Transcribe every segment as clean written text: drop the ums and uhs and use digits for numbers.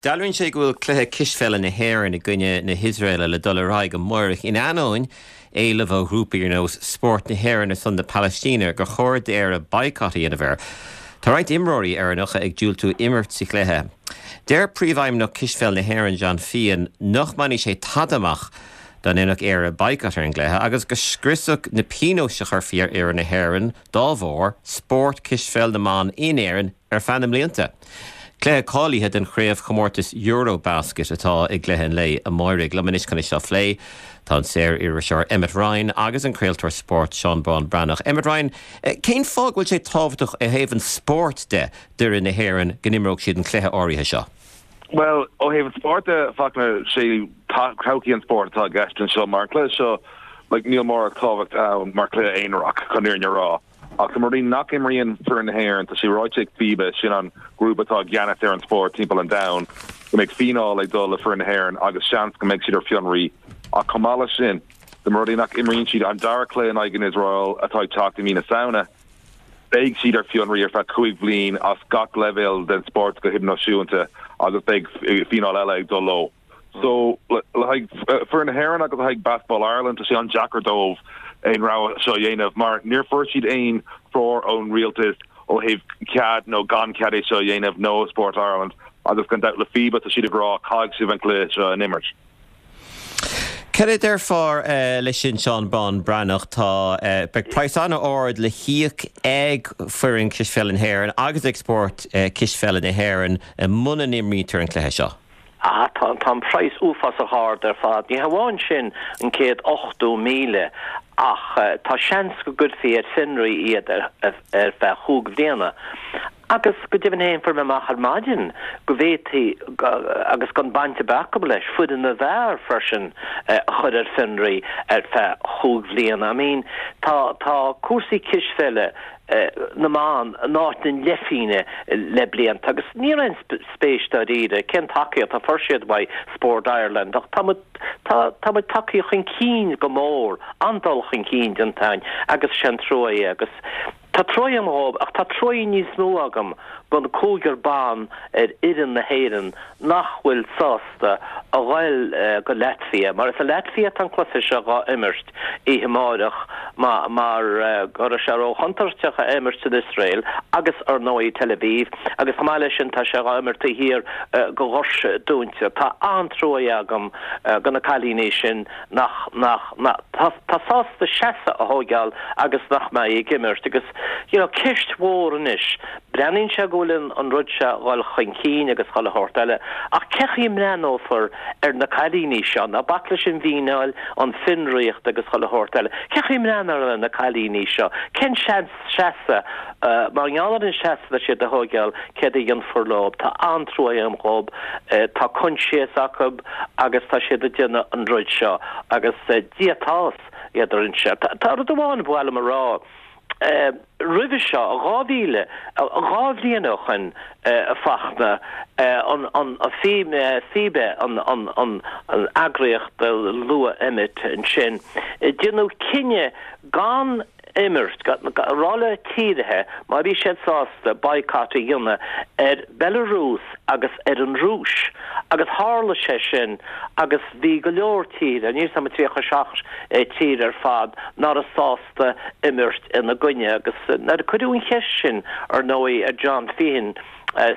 Dealraíonn sé go bhfuil cluiche cispheile na hÉireann i gcoinne na hIosraeile le dul ar aghaidh amáireach in ainneoin éileamh ó ghrúpaí ar nós Spórt na hÉireann ar son na Palaistíne gur chóir d'Éire baghcat a dhéanamh air. Tá roinnt imreoirí Éireannacha ag diúltú imirt sa chluiche. Deir Príomhfheidhmeannach Cispheil na hÉireann John Feehan nach mbainfidh sé tada amach dá ndéanfadh Éire baghcat ar an gcluiche agus go scriosfadh na pionóis a chuirfí ar fhoireann na hÉireann dá bharr spórt cispheil na mban in Éirinn ar feadh na mblianta. Cluiche cáilithe don chraobhchomórtas EuroBasket atá i gcluiche an lae amáirigh. Liom anois chun é seo a phlé tá an saor-iriseoir Emmet Ryan agus an craoltóir spóirt Seán Bán Breathnach. Emmet Ryan, cén fáth go bhfuil sé tábhachtach ó thaobh an spóirt de d'fhoireann na hÉireann go n-imreodh siad an cluiche áirithe seo? Bhuel, ó thaobh an spóirt de, Fachtna, sé todhchaí an spóirt atá i gceist anseo mar an cluiche seo, like, níl mórán tábhacht ann mar chluiche aonarach, chun an fhírinne a rá. Ach dá mba rud é nach imríonn foireann na hÉireann, tá sé ráite ag FIBA, sin an grúpa atá i gceannas ar an spórt timpeall an domhain, go mbeidh fíneáil ag dul le foireann na hÉireann agus seans go mbeidh siad ar fionraí. Ach chomh maith leis sin, dá mba rud é nach imríonn siad an dara cluiche in aghaidh an Iosrael atá ag teacht i mí na Samhna, beidh siad ar fionraí ar feadh 5 bhliain as gach leibhéal den spórt go hidirnáisiúnta agus beidh fíneáil eile ag dul leo. So, le haghaidh foireann na hÉireann agus le haghaidh Basketball Ireland, tá sé an-deacair dóibh aon rogha seo a dhéanamh mar níor fuair siad aon treoir ón rialtas ó thaobh cead nó gan cead é seo a dhéanamh nó ó Sport Ireland agus gan dabht le FIBA tá siad ag rá caithfidh sibh an cluiche seo a imirt. Cad a déarfá leis sin Seán Bán Breathnach? Tá, beidh praghas an-ard le híoc ag foireann cispheile na hÉireann agus ag spórt cispheile na hÉireann muna n-imrítear an cluiche seo. Ah, tá, tá an praghas uafásach ard ar fad. Ní hamháin sin, an 180,000, ach tá seans go gcuirfí ar fionraí iad ar, ar feadh chúig bhliana. Agus go deimhin féin, fuair mé amach ar maidin go bhféadfaí, agus gan baint ar bith acu leis, foireann na bhfear freisin a chur ar fionraí ar feadh chúig bhliana. I mean, tá, tá cúrsaí cispheile na mban in áit na leithphingne le blianta agus ní raibh aon spéis dáiríre cén tacaíocht a fuair siad uaidh Sport Ireland ach tá muid tá tá muid tagtha chun cinn go mór, an-dul chun cinn déanta againn agus sé an trua é agus tá trua agam dhóibh ach tá trua níos mó agam don cúigear ban ar fhoireann na hÉireann nach bhfuil sásta a ghoil go Latvia mar is i Latvia atá an cluiche seo dhá imirt oíche amáireach mar go raibh sé ró-chontúirteach a imirt san Iosrael agus ar ndóigh Tel Aviv agus chomh maith leis sin tá sé dhá imirt taobh thiar go dhoirse dúnta. Tá an-trua agam go na cailíní sin nach, nach, nach, tá sásta seasamh a thóigeáil agus nach mbeidh ag imirt agus you know ceist mhór anois Breathnaíonn sé go bhfuil an rud seo a dhul chun cinn agus chuile shórt eile, ach cé chaoi a mbreathnófar ar na cailíní seo? Ná bac leis an bhfíneáil, an fhionraíocht agus chuile shórt eile. Cé chaoi a mbreathnófar ar na cailíní seo? Cén seans seasamh, mar gheall ar an seasamh atá siad a thóigeáil, céard a dhéanfar leo? Tá an-trua agam dhób. Tá coinsias acu agus tá siad ag déanamh an rud seo agus Dia atá idir sinne. Tá rud amháin ba mhaith liom a rá. Roimhe seo, 2000, 2 bhliain ó shoin, a Fachtna, an FIBA, an eagraíocht a luaigh Emmet ansin, déanadh cinneadh gan imirt, a rá le tíortha má bhí siad sásta boycott a dhéanamh ar Belarus agus ar an Rúis agus tharla sé sin agus bhí go leor tíortha, níl 'fhios a'm 37 tír ar fad, ná raibh sásta. imirt ina gcoinne agus nuair a cuireadh an cheist sin ar ndóigh ar John Feehan,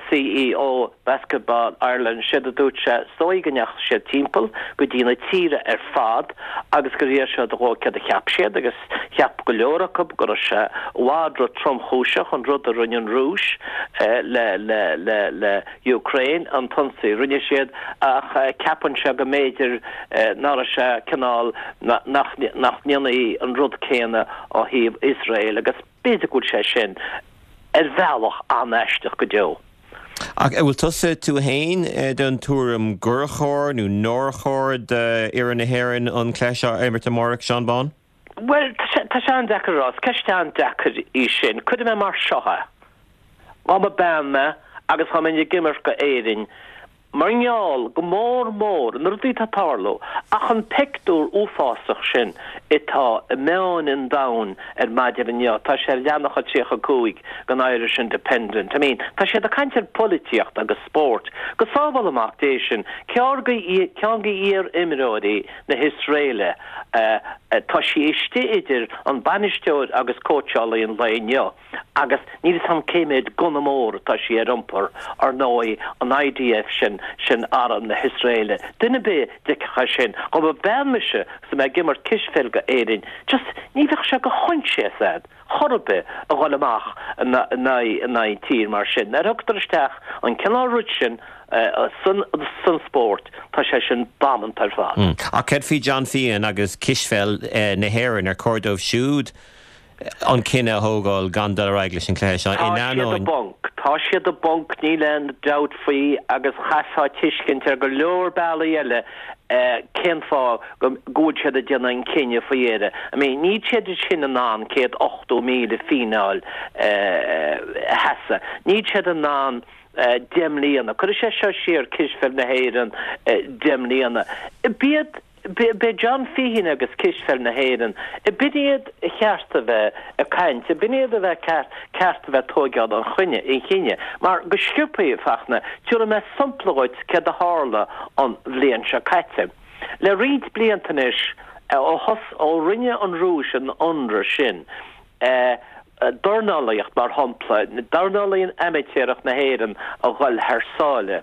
CEO Basketball Ireland, séard a dúirt sé, is dóigh go ndeachaigh siad timpeall go dtí na tíortha ar fad agus gur iarr siad dhóibh céard a cheap siad agus cheap go leor acu go raibh sé i bhfad ro-tromchúiseach an rud a rinne an Rúis le le le le Ukraine, an t-ionsaí a rinne siad, ach ceapann sé go mb'fhéidir ná raibh sé cineál, nach ndéanfaí an rud céanna ó thaobh Iosrael agus b'fhéidir go bhfuil sé sin ar bhealach an-aisteach go deo. Ach an bhfuil tusa, tú fhéin, den tuairim gur chóir nó nár chóir d'fhoireann na hÉireann an cluiche seo a imirt amárach, Seán Bán? Bhuel, tá sé an-deacair a rá. Is ceist an-deacair í sin. Cuirfidh mé mar seo é. Dá mba bean mé agus dá mbeinn ag imirt go Éirinn. Mar gheall, go mór mór, na rudaí atá ag tarlú, ach an peictiúr uafásach sin atá i meáin an domhain ar maidin inniu, tá sé ar leathanach a 35 den Irish Independent, I mean, tá siad ag caint ar pholaitíocht agus spórt. Go sábhála Mac Dé sinn, ceann de iar-imreoirí na hIosraeile, tá sí istigh idir an bainisteoir agus cóitseálaí an lae inniu. Agus níl 'fhios a'm cé mhéad gunna mór atá sí ar iompar, ar ndóigh, an IDF sin, sin arm na hIosraeile. Duine ar bith a d'fheicfeadh é sin, dhá mba bean mise agus mé ag imirt cispheil go Éirinn, just ní bheadh sé de choinsias a'd chor ar bith a dhul amach in aghaidh tír mar sin. Nuair a thugtar isteach an cineál rud sin san san spórt, tá sé sin damanta ar fad. Ach céard faoi John Feehan agus cispheil na hÉireann, ar chóir dóibh siúd an cinneadh a thógáil gan dul ar aghaidh leis an chluiche seo in ainneoin. Tá siad i bponc. Tá siad i bponc, níl aon dabht faoi agus chaithfeá tuiscint ar go leor bealaí eile cén fáth go bhfuil siad ag déanamh an cinneadh faoi dheireadh. I mean, níl siad sin in ann 180,000 fíneáil a sheasamh. Níl siad in ann 10 mbliana. Cuirfidh sé seo siar cispheil na hÉireann 10 mbliana. B'iad B'é John Feehan agus Cispheil na hÉireann, b'in iad a cheart a bheith ag caint, b'in iad a bheith ceart a bheith ag tóigeáil an chinnidh, mar go sciobthaí, a Fachtna, tabharfaidh mé sampla dhuit céard a tharla an bhliain seo caite. Le roinnt blianta anois, ó thos, ó rinne an Rúis an ionradh sin, dornálaíocht, mar shampla, dornálaíocht amaitéarach na hÉireann a dhul thar sáile.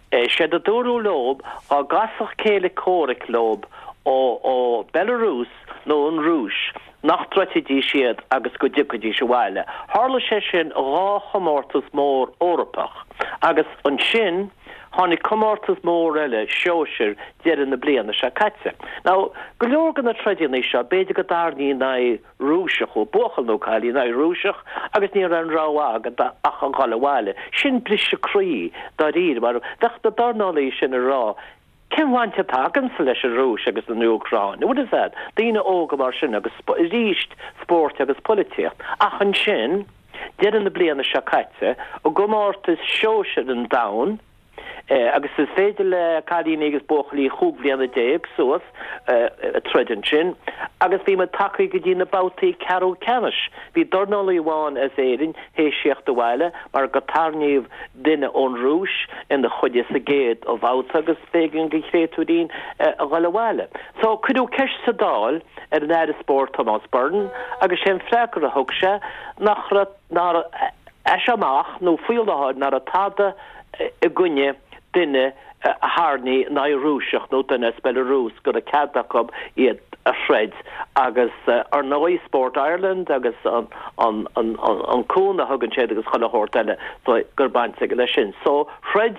Séard a dúradh leob, dhá gcasfadh céile comhraic leob ó Belarus nó an Rúis, nach dtroidfidís iad agus go dtiocfaidís abhaile. Tharla sé sin dhá chomórtas mór Eorpach agus ansin tháinig comórtas mór eile sóisir deireadh na bliana seo caite. Now, go leor de na troideanna seo, b'fhéidir go dtarraingí in aghaidh Rúiseach, ó buachaill nó cailín in aghaidh Rúiseach agus ní raibh aon rogha agat ach a dhul abhaile. Sin briseadh croí, dáiríre, mar bheadh na dornálaí sin ag rá, cén bhaint atá agamsa leis an Rúis agus an Úcráin? Bhfuil fhios a'd, daoine óga mar sin agus arís spórt agus polaitíocht. Ach ansin, deireadh na bliana seo caite, i gcomórtas sóisir an domhain, Agus is féidir le cailíní agus buachaillí chúig bhliana déag suas troid ansin. Agus bhí muid tagtha go dtí na babhtaí ceathrú ceannais. Bhí dornálaí amháin as Éirinn théis theacht abhaile mar go tarraingíodh duine ón Rúis ina choinne sa gcéad bhabhta agus b'éigean don chréatúirín a dhul abhaile. So cuireadh ceist sa Dáil ar an Aire Spóirt Tomás Byrne agus sé an freagra a thug sé nach raibh nár as seo amach nó faoi láthair nach raibh tada i gcoinne duine a tharraingí in aghaidh Rúiseach nó duine as Belarus go raibh cead acu iad a throid agus ar ndóigh Sport Ireland agus an an cúnamh a thugann siad agus chuile shórt eile so gur baint aige leis sin. So throid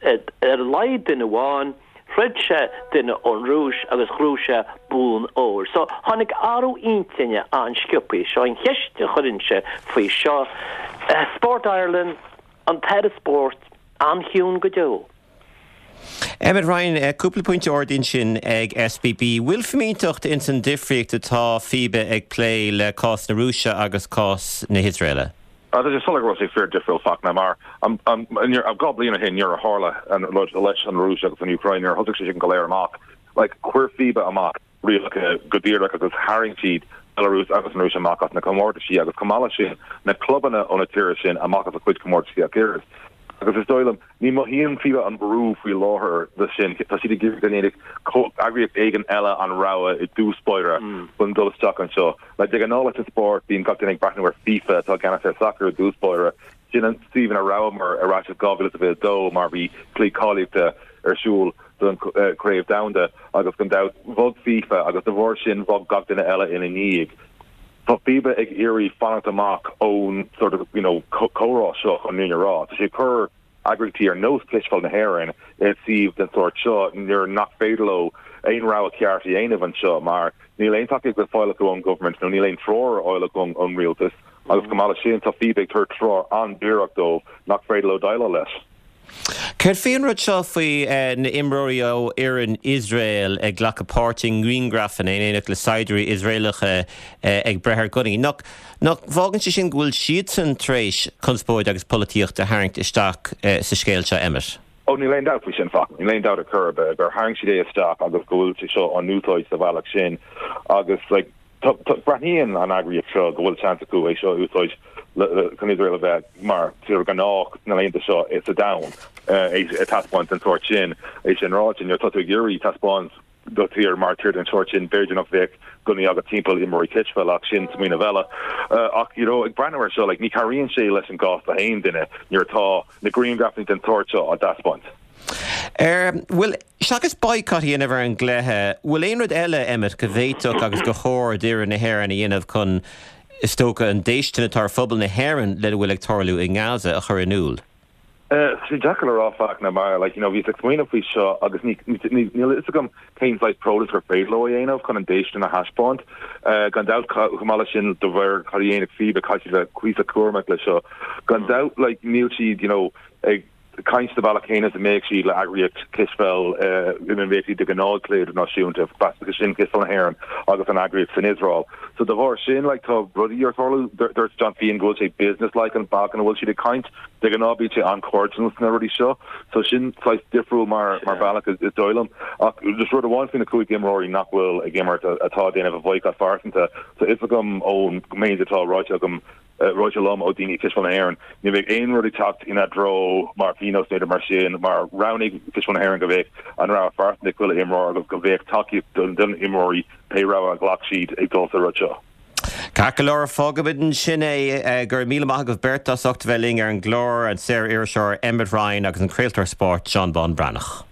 ar a laghad duine amháin, throid sé duine ón Rúis agus ghnóthaigh sé bonn óir. So tháinig athrú intinne an-sciobthaí. Seo an cheist a chuirinnse faoi seo. Sport Ireland, An tAire Spóirt an-chiúin go deo. Emmet Ryan, cúpla pointe ardaithe ansin ag SBB. Bhfuil fimínteacht ins an difríocht atá FIBA ag plé le cás na Rúise agus cás na hIosraeile? Tá sé soiléir go raibh sé fíor difriúil Fachtna mar 2 bliain ó shin nuair a tharla an rud leis an Rúis agus an Úcráin nuair a thosaigh sé sin go léir amach like chuir FIBA amach rialacha go díreach agus tharraing siad Belarus agus an Rúis amach as na comórtaisí agus chomh maith leis sin na clubanna ó na tíortha sin amach as a cuid comórtaisí ach oiread. Agus is dóigh liom, ní mothaíonn FIBA an brú faoi láthair de sin, tá siad ag iarraidh go ndéanfadh eagraíocht éigin eile an rogha i dtús báire chun dul isteach anseo. Like de ghnáth leis an spórt, bíonn gach duine ag breathnú ar FIFA atá i gceannas ar sacar i dtús báire, Sin an suíomh ina rabhamar ar ais i 2022 mar bhí cluichí cáilíochta ar siúl don Chraobh Domhanda agus gan dabht bhog FIFA agus de bharr sin bhog gach duine eile ina ndiaidh. Tá FIBA ag iarraidh fanacht amach ón sort of you know comhrá seo chun an fhírinne a rá. Tá sé ag cur eagraíochtaí ar nós Cispheil na hÉireann i suíomh den sórt seo nuair nach féidir leo aon rogha ceart a dhéanamh anseo mar níl aon tacaíocht le fáil acu ón government nó níl aon treoir ar fháil acu ón rialtas. Agus chomh maith leis sin, tá FIBA ag tabhairt treoir an-díreach dóibh nach féidir leo déileáil leis. Céard faoi an rud seo faoi na imreoirí ó fhoireann Iosrael ag glacadh páirt i ngriangrafanna in éineacht le saighdiúirí Iosraelacha ag breith ar gunnaí? Nach bhfágann sé sin go bhfuil siadsan tar éis conspóid agus polaitíocht a tharraingt isteach sa scéal seo, Emmet? Ó, níl aon dabht faoi sin, Fachtna. Níl aon dabht ar chor ar bith gur tharraing siad é isteach agus go bhfuil sé seo á n-úsáid sa bhealach sin agus like breathnaíonn an eagraíocht seo go bhfuil seans acu é seo a úsáid chun Iosrael a bheith mar tír ghnách sna laethanta seo sa domhan é a taispeáint den sórt sin. É sin ráite, nuair atá tú ag iarraidh taispeáint do thír mar tír den sórt sin, b'fhéidir nach bheadh gunnaí agat timpeall imreoirí cispheile ach sin smaoineamh eile. Ach you know ag breathnú air seo like ní chabhraíonn sé leis an gcás do haon duine nuair atá na grianghrafanna den tsórt seo á dtaispeáint. Bhuel, seachas boycott a dhéanamh ar an gcluiche, bhfuil aon rud eile, Emmet, go bhféadfadh agus gur chóir d'fhoireann na hÉireann a dhéanamh chun, is dócha, an déistin atá ar phobal na hÉireann lena bhfuil ag tarlú i nGaza a chur in iúl? Tá sé deacair le rá Fachtna mar like you know bhíos ag smaoineamh faoi seo agus ní níl a fhios agam cén saghas protest gur féidir leo a dhéanamh chun an déistin a thaispeáint. Gan dabht chomh maith leis sin de bharr cad a dhéanfaidh FIBA caithfidh siad bheith cuíosach cúramach leis seo. Gan dabht like níl siad you know ag caint sa bhealach céanna is a mbeadh siad le eagraíocht cispheil ina mbeadh siad de ghnáth ag cluiche idirnáisiúnta, sin Cispheil na hÉireann agus an eagraíocht san Iosrael. So de bharr sin like tá rudaí ar tarlú. Dúirt John Feehan go bhfuil sé business-like an bealach ina bhfuil siad ag caint. De ghnáth bíonn sé an-chairdiúil sna rudaí seo, so sin saghas difriúil mar mar bhealach is dóigh liom. Ach just rud amháin faoi na 5 imreoirí nach bhfuil ag imirt atá ag déanamh a bhoycott phearsanta, tá fhios agam ón méid atá ráite agam, ráite liom ó daoine i Cispheil na hÉireann, ní bheidh aon rud ag teacht ina dtreo mar phionós nó mar sin mar roghnaigh Cispheil na hÉireann go bheadh an rogha phearsanta ag chuile imreoir agus go bheadh tacaíocht don na imreoirí pé rogha a ghlac siad ag dul sa rud seo. Ceart go leor, fágfaimid ansin é. Go raibh míle maith agaibh beirt as ucht a bheith linn ar an gclár, an saor-iriseoir Emmet Ryan agus an craoltóir spóirt Seán Bán Breathnach.